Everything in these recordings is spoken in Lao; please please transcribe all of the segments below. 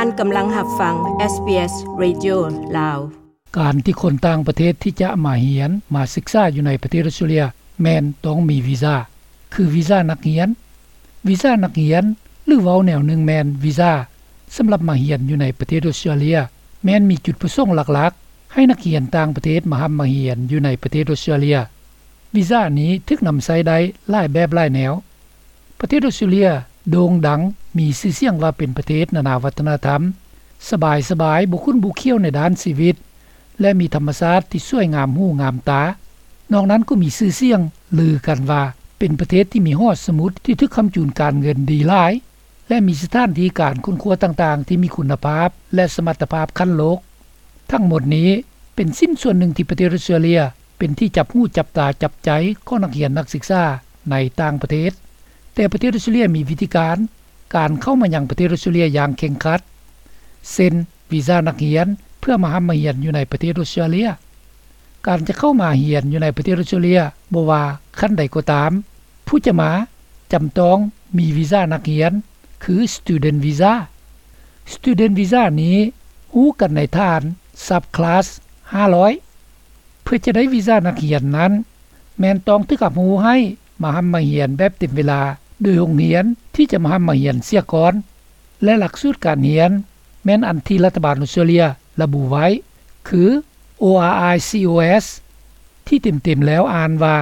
ທ່ານກຳລັງຮັບຟັງ ເອສບີເອສ Radio ລາວ. ການທີ່ຄົນຕ່າງປະເທດທີ່ຈະມາຮຽນ, ມາສຶກສາຢູ່ໃນປະເທດອອສເຕຣເລັຍ ແມ່ນຕ້ອງມີວີຊາ, ຄືວີຊານັກຮຽນ. ວີຊານັກຮຽນ ຫຼື ເວົ້າແນວໜຶ່ງແມ່ນວີຊາສຳລັບມາຮຽນຢູ່ໃນປະເທດອອສເຕຣເລັຍ ແມ່ນມີຈຸດປະສົງຫຼັກໆ ໃຫ້ນັກຮຽນຕ່າງປະເທດມາຮ່ຳມາຮຽນຢູ່ໃນປະເທດອອສເຕຣເລັຍ. ວີຊານີ້ຖືກນຳໃຊ້ໄດ້ຫຼາຍແບບຫຼາຍແນວ. ປະເທດອອສເຕຣເລັຍໂດ່ງດັງ ມີຊື່ສຽງວ່າເປັນປະເທດນານາວັດທະນະທຳ, ສະບາຍໆ ບໍ່ຂຸ້ນບໍ່ຂ້ຽວໃນດ້ານຊີວິດ ແລະ ມີທຳມະຊາດທີ່ສວຍງາມຫູງາມຕາ. ນອກນັ້ນກໍມີຊື່ສຽງລືກັນວ່າເປັນປະເທດທີ່ມີຫໍສະໝຸດທີ່ຖືກຄ້ຳຈູນການເງິນດີຫຼາຍ ແລະ ມີສະຖານທີ່ການຄົ້ນຄວ້າຕ່າງໆທີ່ມີຄຸນນະພາບ ແລະ ສະມັດຕະພາບຂັ້ນໂລກ. ທັງໝົດນີ້ເປັນຊິ້ນສ່ວນໜຶ່ງທີ່ປະເທດອອສເຕຣເລັຍ ເປັນທີ່ຈັບຫູຈັບຕາຈັບໃຈຂອງນັກຮຽນນັກສຶກສາໃນຕ່າງປະເທດ. ແຕ່ປະເທດອອສເຕຣເລັຍມີວິທີການ ການເຂົ້າມາຍັງປະເທດອອສເຕຣເລັຍຢ່າງເຄັ່ງຄັດ ເຊັ່ນ ວີຊານັກຮຽນເພື່ອມາຮ່ຳມາຮຽນຢູ່ໃນປະເທດອອສເຕຣເລັຍ. ການຈະເຂົ້າມາຮຽນຢູ່ໃນປະເທດອອສເຕຣເລັຍ ບໍ່ວ່າຂັ້ນໃດກໍຕາມ, ຜູ້ຈະມາຈຳຕ້ອງມີວີຊານັກຮຽນ ຄື Student Visa. Student Visa ນີ້ຮູ້ກັນໃນຖານ Subclass ຫ້າຮ້ອຍ. ເພື່ອຈະໄດ້ວີຊານັກຮຽນນັ້ນ ແມ່ນຕ້ອງຖືກຮັບຮູ້ໃຫ້ມາຮ່ຳມາຮຽນແບບເຕັມເວລາໂດຍໂຮງຮຽນທີ່ຈະມາຮ່ຳມາຮຽນເສຍກ່ອນ ແລະ ຫຼັກສູດການຮຽນແມ່ນອັນທີ່ລັດຖະບານອອສເຕຣເລັຍລະບຸໄວ້ ຄື ORICOS ທີ່ເຕັມໆແລ້ວອ່ານວ່າ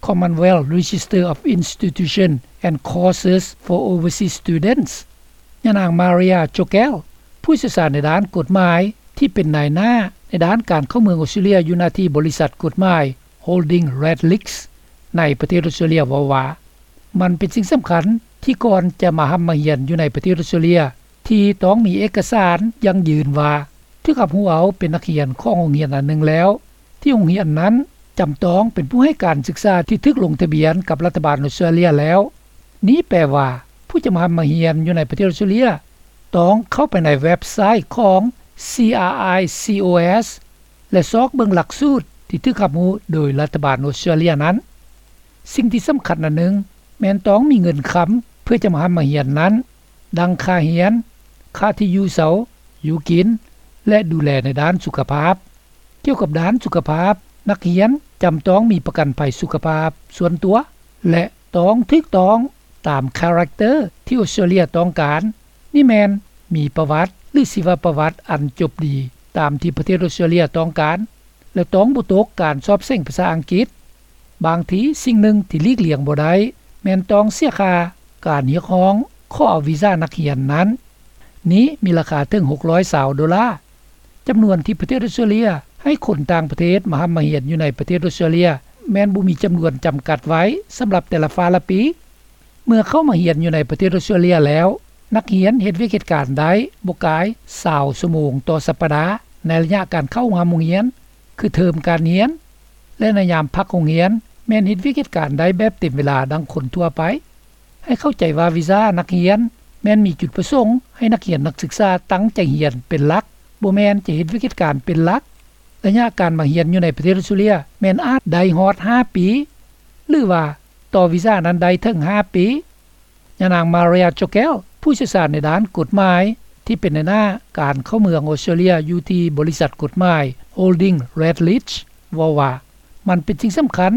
Commonwealth Register of Institutions and Courses for Overseas Students. ຍານາງ Maria Chokel ຜູ້ຊ່ຽວຊານໃນດ້ານກົດໝາຍ ທີ່ເປັນນາຍໜ້າໃນດ້ານການເຂົ້າເມືອງອອສເຕຣເລັຍ ຢູ່ໜ້າທີ່ບໍລິສັດກົດໝາຍ Holding Redlich ໃນປະເທດອອສເຕຣເລັຍ ເວົ້າວ່າ ມັນເປັນສິ່ງສຳຄັນທີ່ກ່ອນຈະມາຮ່ຳມາຮຽນຢູ່ໃນປະເທດອອສເຕຣເລັຍ ທີ່ຕ້ອງມີເອກະສານຢັ້ງຢືນວ່າຖືກຮັບຮູ້ເອົາເປັນນັກຮຽນຂອງໂຮງຮຽນອັນໜຶ່ງແລ້ວ ທີ່ໂຮງຮຽນນັ້ນຈຳຕ້ອງເປັນຜູ້ໃຫ້ການສຶກສາທີ່ຖືກລົງທະບຽນກັບລັດຖະບານອອສເຕຣເລັຍແລ້ວ. ນີ້ແປວ່າ ຜູ້ຈະມາຮ່ຳມາຮຽນຢູ່ໃນປະເທດອອສເຕຣເລັຍ ຕ້ອງເຂົ້າໄປໃນເວັບໄຊຂອງ CRICOS ແລະ ຊອກເບິ່ງຫຼັກສູດທີ່ຖືກຮັບຮູ້ໂດຍລັດຖະບານອອສເຕຣເລັຍນັ້ນ. ສິ່ງທີ່ສຳຄັນອັນໜຶ່ງ ແມ່ນຕ້ອງມີເງິນຄຳເພື່ອຈະມາຮ່ຳມາຮຽນນັ້ນ, ດັ່ງຄ່າຮຽນ, ຄ່າທີ່ຢູ່ເຊົາ, ຢູ່ກິນ ແລະ ດູແລໃນດ້ານສຸຂະພາບ. ກ່ຽວກັບດ້ານສຸຂະພາບ, ນັກຮຽນຈຳຕ້ອງມີປະກັນໄພສຸຂະພາບສ່ວນຕົວ ແລະ ຕ້ອງຖືກຕ້ອງຕາມຄາແຣັກເຕີທີ່ອອສເຕຣເລັຍຕ້ອງການ. ນີ້ແມ່ນມີປະຫວັດ ຫຼື ຊີວະປະຫວັດອັນຈົບດີຕາມທີ່ປະເທດອອສເຕຣເລັຍຕ້ອງການ ແລະ ຕ້ອງບໍ່ຕົກການສອບເສັງພາສາອັງກິດ. ບາງທີສິ່ງໜຶ່ງທີ່ຫຼີກລ່ຽງບໍ່ໄດ້ ແມ່ນຕ້ອງເສຍຄ່າການຮຽກຮ້ອງຂໍເອົາວີຊານັກຮຽນນັ້ນ. ນີ້ມີລາຄາເຖິງຫົກຮ້ອຍຊາວໂດລາ. ຈຳນວນທີ່ປະເທດອອສເຕຣເລັຍໃຫ້ຄົນຕ່າງປະເທດມາຮ່ຳມາຮຽນຢູ່ໃນປະເທດອອສເຕຣເລັຍ ແມ່ນບໍ່ມີຈຳນວນຈຳກັດໄວ້ສຳລັບແຕ່ລະຟ້າລະປີ. ເມື່ອເຂົ້າມາຮຽນຢູ່ໃນປະເທດອອສເຕຣເລັຍແລ້ວ, ນັກຮຽນເຮັດວຽກເຮັດການໄດ້ບໍ່ກາຍຊາວຊົ່ວໂມງຕໍ່ສັບປະດາ ໃນໄລຍະການເຂົ້າຮ່ວມໂຮງຮຽນ ຄືເທີມການຮຽນ ແລະ ໃນຍາມພັກໂຮງຮຽນ ແມ່ນເຮັດວຽກເຮັດການໄດ້ແບບເຕັມເວລາດັ່ງຄົນທົ່ວໄປ. ໃຫ້ເຂົ້າໃຈວ່າວີຊານັກຮຽນແມ່ນມີຈຸດປະສົງໃຫ້ນັກຮຽນນັກສຶກສາຕັ້ງໃຈຮຽນເປັນຫຼັກ, ບໍ່ແມ່ນຈະເຮັດວຽກເຮັດການເປັນຫຼັກ. ໄລຍະການມາຮຽນຢູ່ໃນປະເທດອອສເຕຣເລັຍແມ່ນອາດໄດ້ຮອດຫ້າປີ ຫຼືວ່າຕໍ່ວີຊານັ້ນໄດ້ເຖິງຫ້າປີ. ຍານາງ Maria Chokel ຜູ້ຊ່ຽວຊານໃນດ້ານກົດໝາຍ ທີ່ເປັນໃນໜ້າການເຂົ້າເມືອງອອສເຕຣເລັຍຢູ່ທີ່ບໍລິສັດກົດໝາຍ Holding Redlich ເວົ້າວ່າ ມັນເປັນສິ່ງສຳຄັນ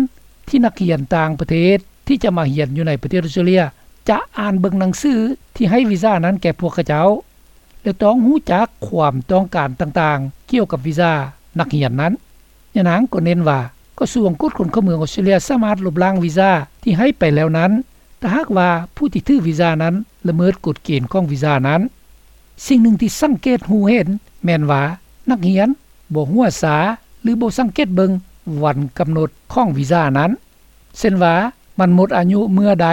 ທີ່ນັກຮຽນຕ່າງປະເທດທີ່ຈະມາຮຽນຢູ່ໃນປະເທດອອສເຕຣເລັຍ ຈະອ່ານເບິ່ງໜັງສືທີ່ໃຫ້ວີຊານັ້ນແກ່ພວກເຂົາເຈົ້າ ແລະ ຕ້ອງຮູ້ຈັກຄວາມຕ້ອງການຕ່າງໆກ່ຽວກັບວີຊານັກຮຽນນັ້ນ. ຍານາງກໍເນັ້ນວ່າ ກະຊວງກວດຄົນເຂົ້າເມືອງອອສເຕຣເລັຍສາມາດລົບລ້າງວີຊາທີ່ໃຫ້ໄປແລ້ວນັ້ນ ຖ້າຫາກວ່າຜູ້ທີ່ຖືວີຊານັ້ນລະເມີດກົດເກນຂອງວີຊານັ້ນ. ສິ່ງໜຶ່ງທີ່ສັງເກດຮູ້ເຫັນແມ່ນວ່າ ນັກຮຽນບໍ່ຫົວຊາ ຫຼື ບໍ່ສັງເກດເບິ່ງວັນກຳນົດຂອງວີຊານັ້ນ ເຊັ່ນວ່າ ມັນໝົດອາຍຸເມື່ອໃດ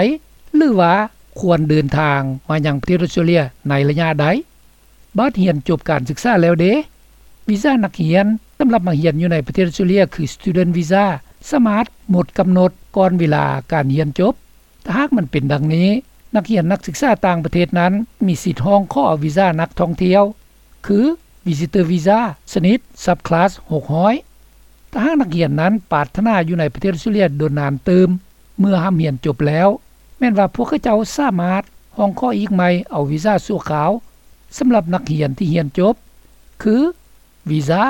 ຫຼືວ່າຄວນເດີນທາງມາຍັງປະເທດອອສເຕຣເລັຍໃນໄລຍະໃດ. ບາດຮຽນຈົບການສຶກສາແລ້ວເດ? ວີຊານັກຮຽນສຳລັບມາຮຽນຢູ່ໃນປະເທດອອສເຕຣເລັຍ ຄື Student Visa ສາມາດໝົດກຳນົດກ່ອນເວລາການຮຽນຈົບ. ຖ້າຫາກມັນເປັນດັ່ງນີ້, ນັກຮຽນນັກສຶກສາຕ່າງປະເທດນັ້ນມີສິດຮ້ອງຂໍເອົາວີຊານັກທ່ອງທ່ຽວ ຄື Visitor Visa ຊະນິດ Subclass ຫົກຮ້ອຍ. ຖ້າຫາກນັກຮຽນນັ້ນປາດຖະໜາຢູ່ໃນປະເທດອອສເຕຣເລັຍດົນນານຕື່ມ ເມື່ອຮ່ຳຮຽນຈົບແລ້ວ, ແມ່ນວ່າພວກເຂົາເຈົ້າສາມາດຮ້ອງຂໍອີກໃໝ່ເອົາວີຊາຊົ່ວຄາວ ສຳລັບນັກຮຽນທີ່ຮຽນຈົບ ຄື ວີຊາ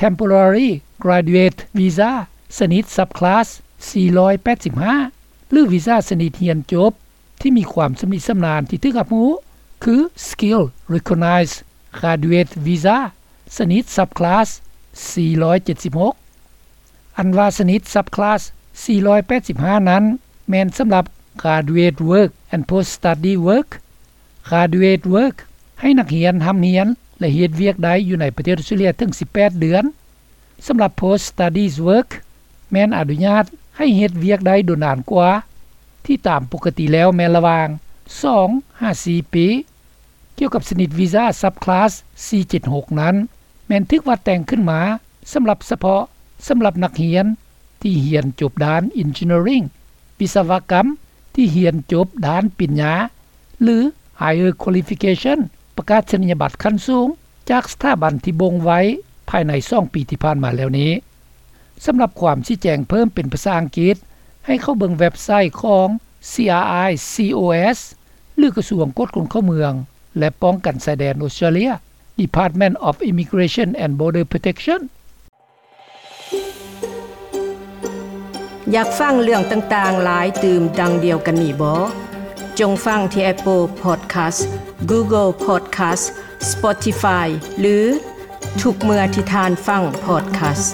Temporary Graduate Visa ຊະນິດ Subclass ສີ່ຮ້ອຍແປດສິບຫ້າ ຫຼື ວີຊາຊະນິດຮຽນຈົບທີ່ມີຄວາມຊຳນິຊຳນານທີ່ຖືກຮັບຮູ້ ຄື Skilled Recognized Graduate Visa ຊະນິດ Subclass ສີ່ຮ້ອຍເຈັດສິບຫົກ. ອັນວ່າຊະນິດ Subclass ສີ່ຮ້ອຍແປດສິບຫ້ານັ້ນ ແມ່ນສຳລັບ Graduate Work and Post-Study Work. Graduate Work ໃຫ້ນັກຮຽນຮ່ຳຮຽນ ແລະ ເຮັດວຽກໄດ້ຢູ່ໃນປະເທດອອສເຕຣເລັຍເຖິງສິບແປດເດືອນ. ສຳລັບ Post Studies Work ແມ່ນອະນຸຍາດໃຫ້ເຮັດວຽກໄດ້ດົນນານກວ່າ ທີ່ຕາມປົກກະຕິແລ້ວແມ່ນລະຫວ່າງສອງຫາສີ່ປີ. ກ່ຽວກັບຊະນິດວີຊາ Subclass ສີ່ເຈັດຫົກນັ້ນ ແມ່ນຖືກວັດແຕ່ງຂຶ້ນມາສຳລັບສະເພາະສຳລັບນັກຮຽນທີ່ຮຽນຈົບດ້ານ Engineering ວິສະວະກຳ ທີ່ຮຽນຈົບດ້ານປິນຍາ ຫຼື Higher Qualification ປະກາສະນີຍະບັດຂັ້ນສູງ ຈາກສະຖາບັນທີ່ບົ່ງໄວ້ພາຍໃນສອງປີທີ່ຜ່ານມາແລ້ວນີ້. ສຳລັບຄວາມຊີ້ແຈງເພີ່ມເປັນພາສາອັງກິດ ໃຫ້ເຂົ້າເບິ່ງເວັບໄຊຂອງ CRICOS ຫຼື ກະຊວງກວດຄົນເຂົ້າເມືອງ ແລະ ປ້ອງກັນຊາຍແດນອອສເຕຣເລັຍ Department of Immigration and Border Protection. ຢາກຟັງເລື່ອງຕ່າງໆຫຼາຍຕື່ມດັ່ງດຽວກັນນີ້ບໍ? ຈົ່ງຟັງທີ່ Apple Podcast, Google Podcast, Spotify ຫຼື ທຸກເມື່ອທີ່ທ່ານຟັງ Podcast.